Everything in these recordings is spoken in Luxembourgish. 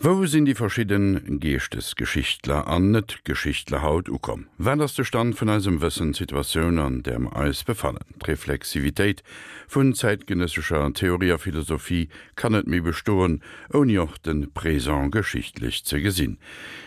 Wou sinn déi verschidden Geeschtesgeschichtler an Net-Geschichtler haut ukomm? Wat ass de Stand vun eisem Wëssen, d'Situatioun an där mer eis befannen? D'Reflexivitéit vun zäitgenëssescher Theorie a Philosophie kann net méi bestoen, ouni och de Présent geschichtlech ze gesinn.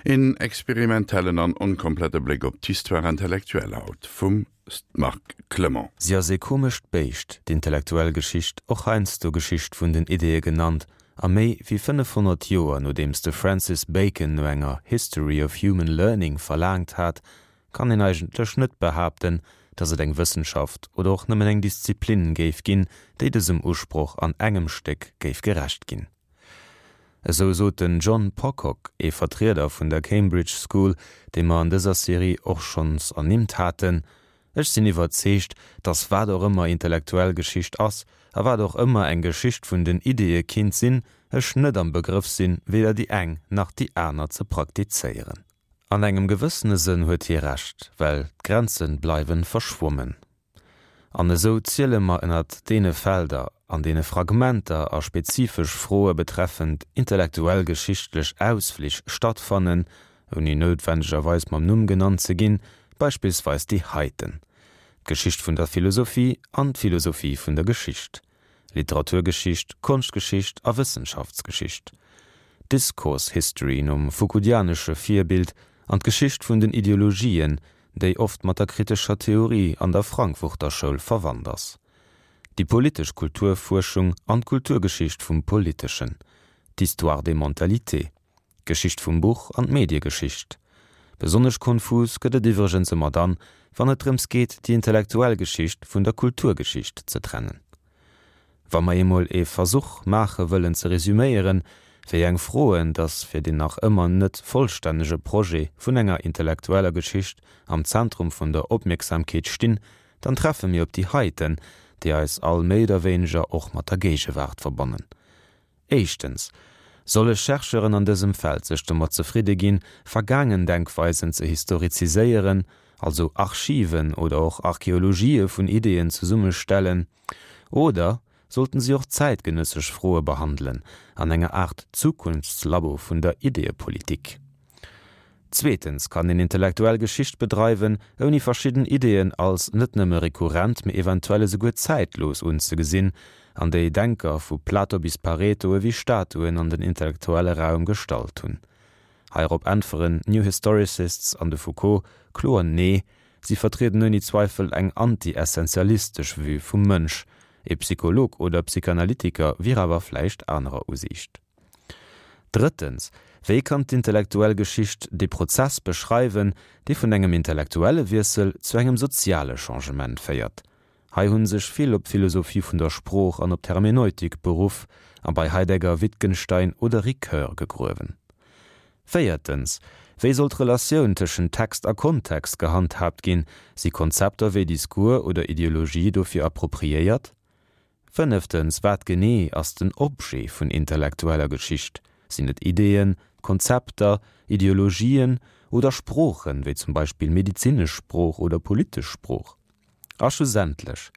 Een experimentellen an onkomplette Bléck op d'Histoire intellectuelle haut vum Marc Clement. Si ass ee komescht Béischt, d'intellektuell Geschicht, och heiansdo Geschicht vun den Ideeë genannt, a méi wéi 500 Joer nodeems de Francis Bacon no enger History of Human Learning verlaangt hat, kann een eigentlech net behaapten, datt et eng Wëssenschaft oder och nëmmen eng Disziplin géif ginn, déi dësem Usproch an engem Stéck géif gerecht ginn. Esou sot den John Pocock, ee Vertrieder vun der Cambridge School, dee mer an dëser Serie och schonns ernimmt haten, Ech sinn iwwerzeegt, datt wat och ëmmer intellektuell Geschicht ass, a wat och ëmmer eng Geschicht vun den Ideeë kinnt sinn, ech net am Begrëff sinn, weder déi eng nach déi aner ze praktizéieren. An engem gewëssene Sënn huet hie Recht, well d'Grenze bleiwe verschwommen. An esou ziele mer ënnert deene Felder, an deene Fragmenter a spezifesch Froe betreffend intellektuell-geschichtlech Ausflich stattfannen, ouni noutwendegerweis mam Numm genannt ze ginn, beispillsweis déi heiten, d'Geschicht vun der Philosophie an d'Philosophie vun der Geschicht, Literaturgeschicht, Konschtgeschicht a Wëssenschaftsgeschicht, Discourse History nom foucauldianesche Virbild an d'Geschicht vun den Ideologien, déi oft mat der kritescher Theorie an der Frankfurter Schoul verwannt ass, déi politesch Kulturfuerschung an d'Kulturgeschicht vum Politeschen, d'Histoire des mentalités, d'Geschicht vum Buch an d'Mediegeschicht. Besonnesch konfus gëtt et iwwregens ëmmer dann, wann et drëms geet, déi intellektuell Geschicht vun der Kulturgeschicht ze trennen. Wa mer eemol ee Versuch maache wëllen ze resüméieren, wéi eng Froen dass fir deen nach ëmmer net vollstännege Projet vun enger intellektueller Geschicht am Zentrum vun der Opmierksamkeet stinn, dann treffe mir op déi heiten, déi eis all méi oder wéineger och mat der Géigewaart verbannen. Éischtens, Solle Chercheuren an dësem Feld sech domat zefridde ginn, vergaangen Denkweisen ze historiziséieren, also Archiven oder och Archeologië vun Ideeën zesummestellen, oder sollten si och zäitgenëssesch Froe behandelen, an enger Aart Zukunftslabo vun der Ideeëpolitik? Zweetens kann een intellektuell Geschicht bedreiwen, ouni verschidden Ideeën als net nëmme rekurrent, mee eventuell esouguer zäitlos unzegesinn, an déi Denker vu Plato bis Pareto ewéi Statuen an den intellektuelle Raum gestallt hunn. Heirop äntweren d'New Historicists an de Foucault kloer Nee, si vertrieden ouni Zweifel eng anti-essentialistesch Vue vum Mënsch, ee Psycholog oder Psychanalytiker wier awer vläicht anerer Usiicht. Drëttens, wéi kann d'intellektuell Geschicht dee Prozess beschreiwen, dee vun engem intellektuelle Wiessel zu engem soziale Changement féiert? Hei hu sech vill op d'Philosophie vun der Sprooch an op d'Hermeneutik beruff a bei Heidegger, Wittgenstein oder Ricoeur gegruewen. Véiertens, wéi soll d'Relatioun tëschent Text a Kontext gehandhaabt ginn? Si Konzepter wéi Discours oder Ideologie dofir appropriéiert? Fënneftens, wat genee ass den Objet vun intellektueller Geschicht? Sinn et Ideeën, Konzepter, Ideologien oder Sproochen, wéi zum Beispill medezinesch Sprooch oder politesch Sprooch? A schlussendlech,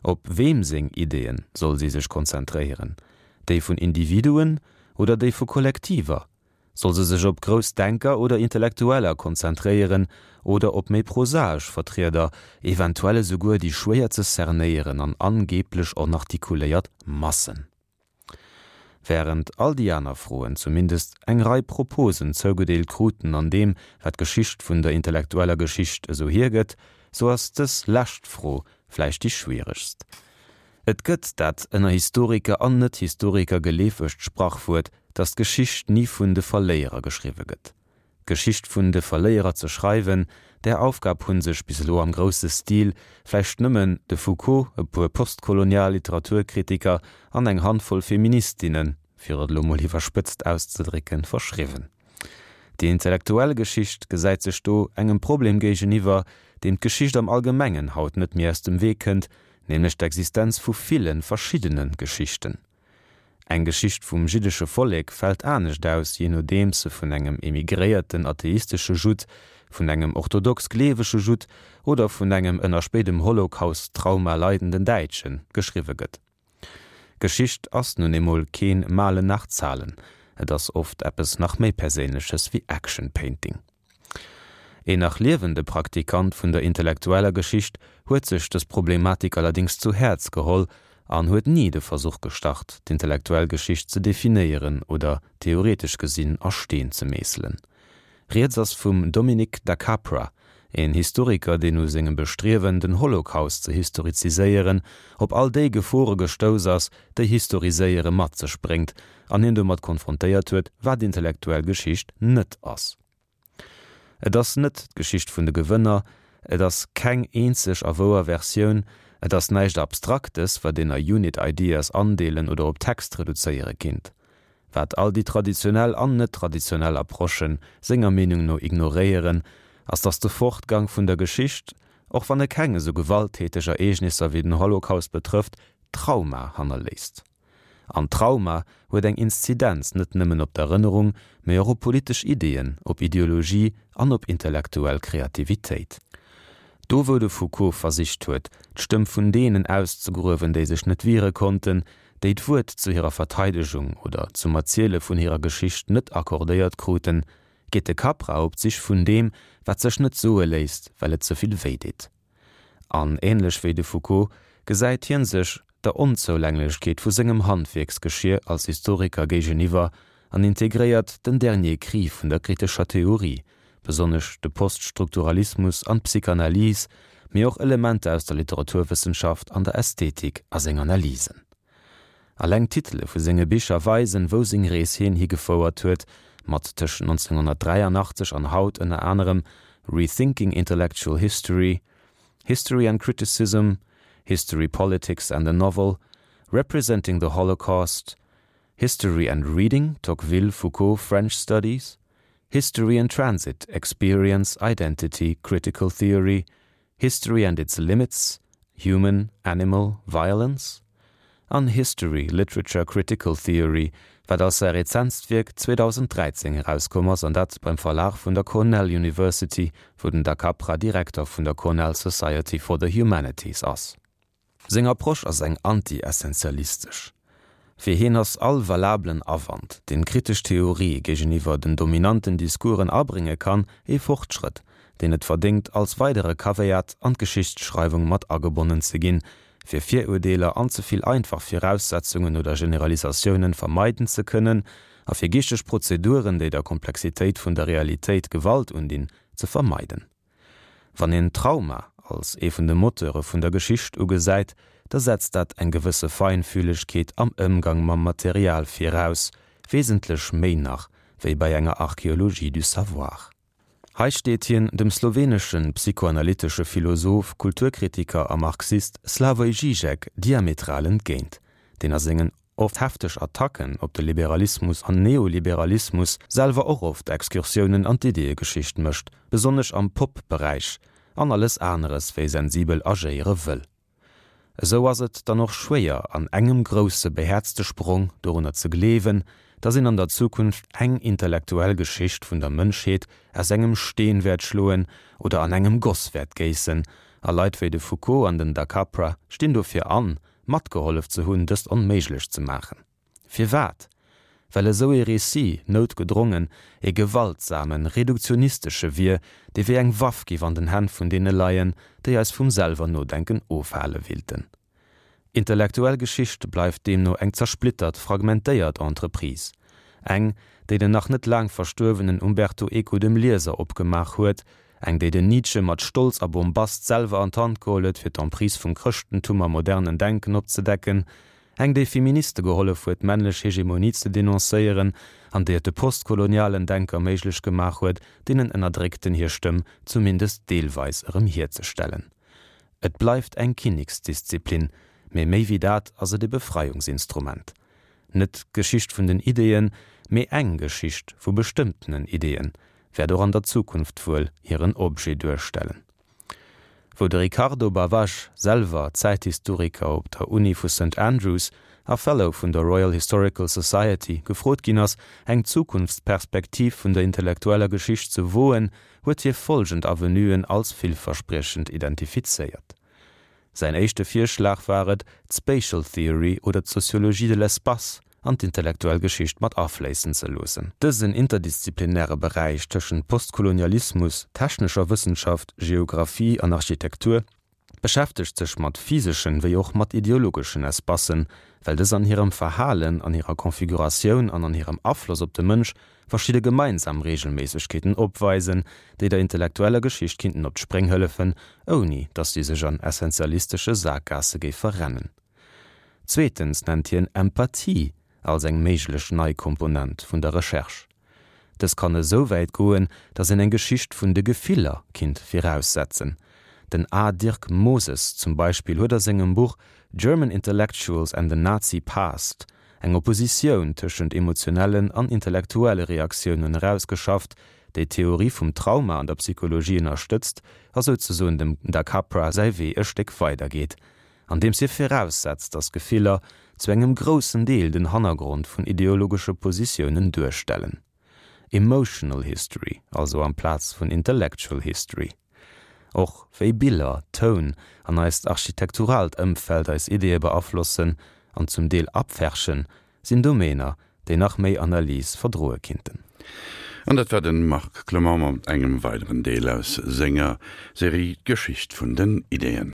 op weem seng Ideeën soll si sech konzentréieren? Déi vun Individuen oder déi vu Kollektiver? Soll se sech op grouss Denker oder Intellektueller konzentréieren oder op méi prosaesch Vertrieder, eventuell esouguer déi schwéier ze cernéieren an angeeblech onartikuléiert Massen? Wärend all déi aner Froen zumindest eng Rei Proposen zougedeelt kruten an deem, wat d'Geschicht vun der intellektueller Geschicht esou hiergëtt, sou ass dës lescht Fro vläicht déi schwieregst. Et gëtt dat ënner Historiker an Net-Historiker geleefegt Sprachwuert, datt d'Geschicht ni vun de Verléierer geschriwwe gëtt. D'Geschicht vun de Verléierer ze schreiwen, där Aufgab hu sech bis elo am grousse Stil vläicht nëmmen de Foucault, e puer postkolonial Literaturkritiker an eng Handvoll Feministinnen, fir et elo mol iwwerspëtzt auszedrécken, verschriwwen. Déi intellektuell Geschicht gesäit sech do engem Problem géigeniwwer, deem d'Geschicht am Allgemengen haut net méi aus dem Wee kënnt, nämlech d'Existenz vu ville verschiddene Geschichten. Eng Geschicht vum jiddesche Vollek fält anescht aus, jee nodeems se vun engem emigréierten atheistesche Judd, vun engem orthodox gleewege Judd oder vun engem ënner spéidem Holocaust-Trauma leidenden Däitsche geschriwwe gëtt. Geschicht ass nun eemol keen Malen nach Zahlen. Et ass oft eppes nach méi Perséinleches wéi Action Painting. Een nach liewende Praktikant vun der intellektueller Geschicht huet sech dës Problematik allerdéngs zu Häerz geholl an huet ni de Versuch gestart, d'intellektuell Geschicht ze definéieren oder theoretesch gesinn a Steen ze meesselen. Rieds ass vum Dominic da Capra, een Historiker, deen u sengem Bestriewen, den Holocaust ze historiziséieren, op all déi Gefore gestouss ass, déi Historiséiere mat sech bréngt, an hien domat konfrontéiert huet, wat intellektuell Geschicht net ass. Et ass net d'Geschicht vun de Gewënner, et ass keng eenzeg a wouer Versioun, et ass näischt Abstraktes, wat een a Unit Ideas andeelen oder op Text reduzéiere kinnt. Wat all déi traditionell an net-traditionell Approchen senger Meenung no ignoréieren, ass datt de Fortgang vun der Geschicht, och wann e keng esou gewalttäteg Ereegnisser wéi den Holocaust betrëfft, Trauma hannerléisst. An Trauma huet eng Inzidenz net nëmmen op d'Erënnerung, mee och op politesch Ideeën, op Ideologie an op intellektuell Kreativitéit. Do wou de Foucault versicht huet, d'Stëmm vun deenen auszegruewen, déi sech net wiere konnten, déi d'Wuert zu hirer Verteidegung oder zum Erziele vun hirer Geschicht net accordéiert kruten, geet de Capra op d'Sich vun deem, wat sech net soe léisst, well et ze vill wéideet. An ähnlech wéi de Foucault gesäit hien sech der Onzoulänglechkeet vu sengem Handwierksgeschier als Historiker géigeniwwer an integréiert den Dernier cri vun der kritescher Theorie, besonnesch de Poststrukturalismus an d'Psychanalyse, mee och Elementer aus der Literaturwëssenschaft an der Ästhetik a seng Analysen. Alleng d'Titele vu senge Bicher weisen, wou seng Rees hien higefouert huet, mat tëschent 1983 an haut ënner anerem Rethinking Intellectual History, History and Criticism, History, Politics and the Novel, Representing the Holocaust, History and Reading, Tocqueville, Foucault, French Studies, History in Transit, Experience, Identity, Critical Theory, History and its Limits, Human, Animal, Violence? An History, Literature, Critical Theory, wat als säi rezentst Wierk 2013 erauskomm ass, an dat beim Verlag vun der Cornell University, wou den Da Capra Direkter vun der Cornell Society for the Humanities ass. Seng Approche ass eng anti-essentialistesch. Fir hien ass all valablen Awand, deen kritesch Theorie géigeniwwer den dominanten Discoursen abrénge kann, ee Fortschrëtt, deen et verdéngt, als weidere Caveat an d'Geschichtsschreiwung mat agebonnen ze ginn, fir Virurdeeler an ze vill einfach Viraussetzungen oder Generalisatiounen vermeiden ze kënnen a fir geeschteg Prozeduren, déi der Komplexitéit vun der Realitéit Gewalt undinn, ze vermeiden. Wann een Trauma als ee vun de Moteure vun der Geschicht ugesäit, da setzt dat eng gewësse Feinfühlegkeet am Ëmgang mam Material viraus, wesentlech méi nach wéi bei enger Archéologie du savoir. Hei steet hien dem slowenesche psychoanalytesche Philosoph, Kulturkritiker a Marxist Slavoj Žižek diametral entgéint, deen a sengen oft hefteg Attacken op de Liberalismus an Neoliberalismus, selwer och oft Excursiounen an d'Ideeëgeschicht mécht, besonnesch am Pop-Beräich, an alles aneres wéi sensibel agéiere wëll. Esou ass et dann och schwéier, an engem grousse behäerzte Sprong dorunner ze gleewen, datt een an der Zukunft eng intellektuell Geschicht vun der Mënschheet aus engem Steen wäert schloen oder an engem Goss wäert géissen, a Leit wéi de Foucault an den Da Capra stinn dofir an, matgehollef ze hunn, dëst onméiglech ze maachen. Firwat? Well esou ee Récit noutgedrongen ee gewaltsamen, reduktionistesche wier, dee wéi eng Waff giff an den Hänn vun deene leien, déi eis vum selwer Nodenken ofhale willten. Intellektuell Geschicht bleift deemno eng zersplittert, fragmentéiert Entreprise. Eng, déi den nach net laang verstuerwenen Umberto Eco dem Lieser opgemaach huet, Eng, déi den Nietzsche mat Stolz a Bombast selwer an d'Hand geholl huet, fir d'Emprise vum Chrëschtentum am modernen Denken opzedecken. Eng, déi Feministe gehollef huet, d'männlech Hegemonie ze denoncéieren an déi et de postkolonialen Denker méiglech gemaach huet, deenen Ënnerdréckten hir Stëmm zumindest deelweis erëm hierzestellen. Et bleift eng Kinneksdisziplin, mee méi wéi dat ass et e Befreiungsinstrument. Net d'Geschicht vun den Ideeën, mee eng Geschicht vu bestëmmtenen Ideeën, wäert och an der Zukunft wuel hiren Objet duerstellen. Wou de Ricardo Bavaj, selwer Zäithistoriker op der Uni vu Saint Andrews a Fellow vun der Royal Historical Society, gefrot ginn ass, eng Zukunftsperspektiv vun der intellektueller Geschicht ze woen, huet hie follgend Avenuen als villverspriechend identifizéiert. Säin éischte Virschlag war et, d'Spatial Theory oder d'Sociologie de l'espace. an d'intellektuell Geschicht mat afléissen ze loossen. Dësen interdisziplinäre Beräich tëschent Postkolonialismus, technescher Wëssenschaft, Geographie an Architektur beschäftegt sech mat physeschen wéi och mat ideologeschen Espacen, well dës an hirem Verhalen, an hirer Konfiguratioun an an hirem Afloss op de Mënsch verschidde gemeinsam Reegelméissegkeeten opweisen, déi der intellektueller Geschicht kinnten op d'Spréng hëllefen, ouni datt si sech an essentialistesche Sakgaasse géif verrennen. Zweetens nennt hien Empathie als eng méiglech nei Komponent vun der Recherche. Dës kann esou wäit goen, datt een eng Geschicht vun de Gefiller kinnt viraussetzen. Den A. Dirk Moses zum Beispill huet a sengem Buch German Intellectuals and the Nazi Past eng Oppositioun tëschent emotionellen an intellektuelle Reaktiounen erausgeschafft, déi d'Theorie vum Trauma an der Psychologie ënnerstëtzt a souzesoen dem Da Capra säi Wee e Stéck weidergeet, andeems hie viraussetzt, datt Gefiller zu engem groussen Deel den Hannergrond vun ideologesche Positiounen duerstellen. Emotional History also amplaz vun Intellectual History. Och wéi Biller, Toun an eist architekturaalt Ëmfeld eis Ideeë beaflossen an zum Deel abferchen, sinn Domäner, déi nach méi Analys verdroe kinnten. An dat war de Marc Clement mat engem weideren Deel aus senger Serie D'Geschicht vun den Ideeën.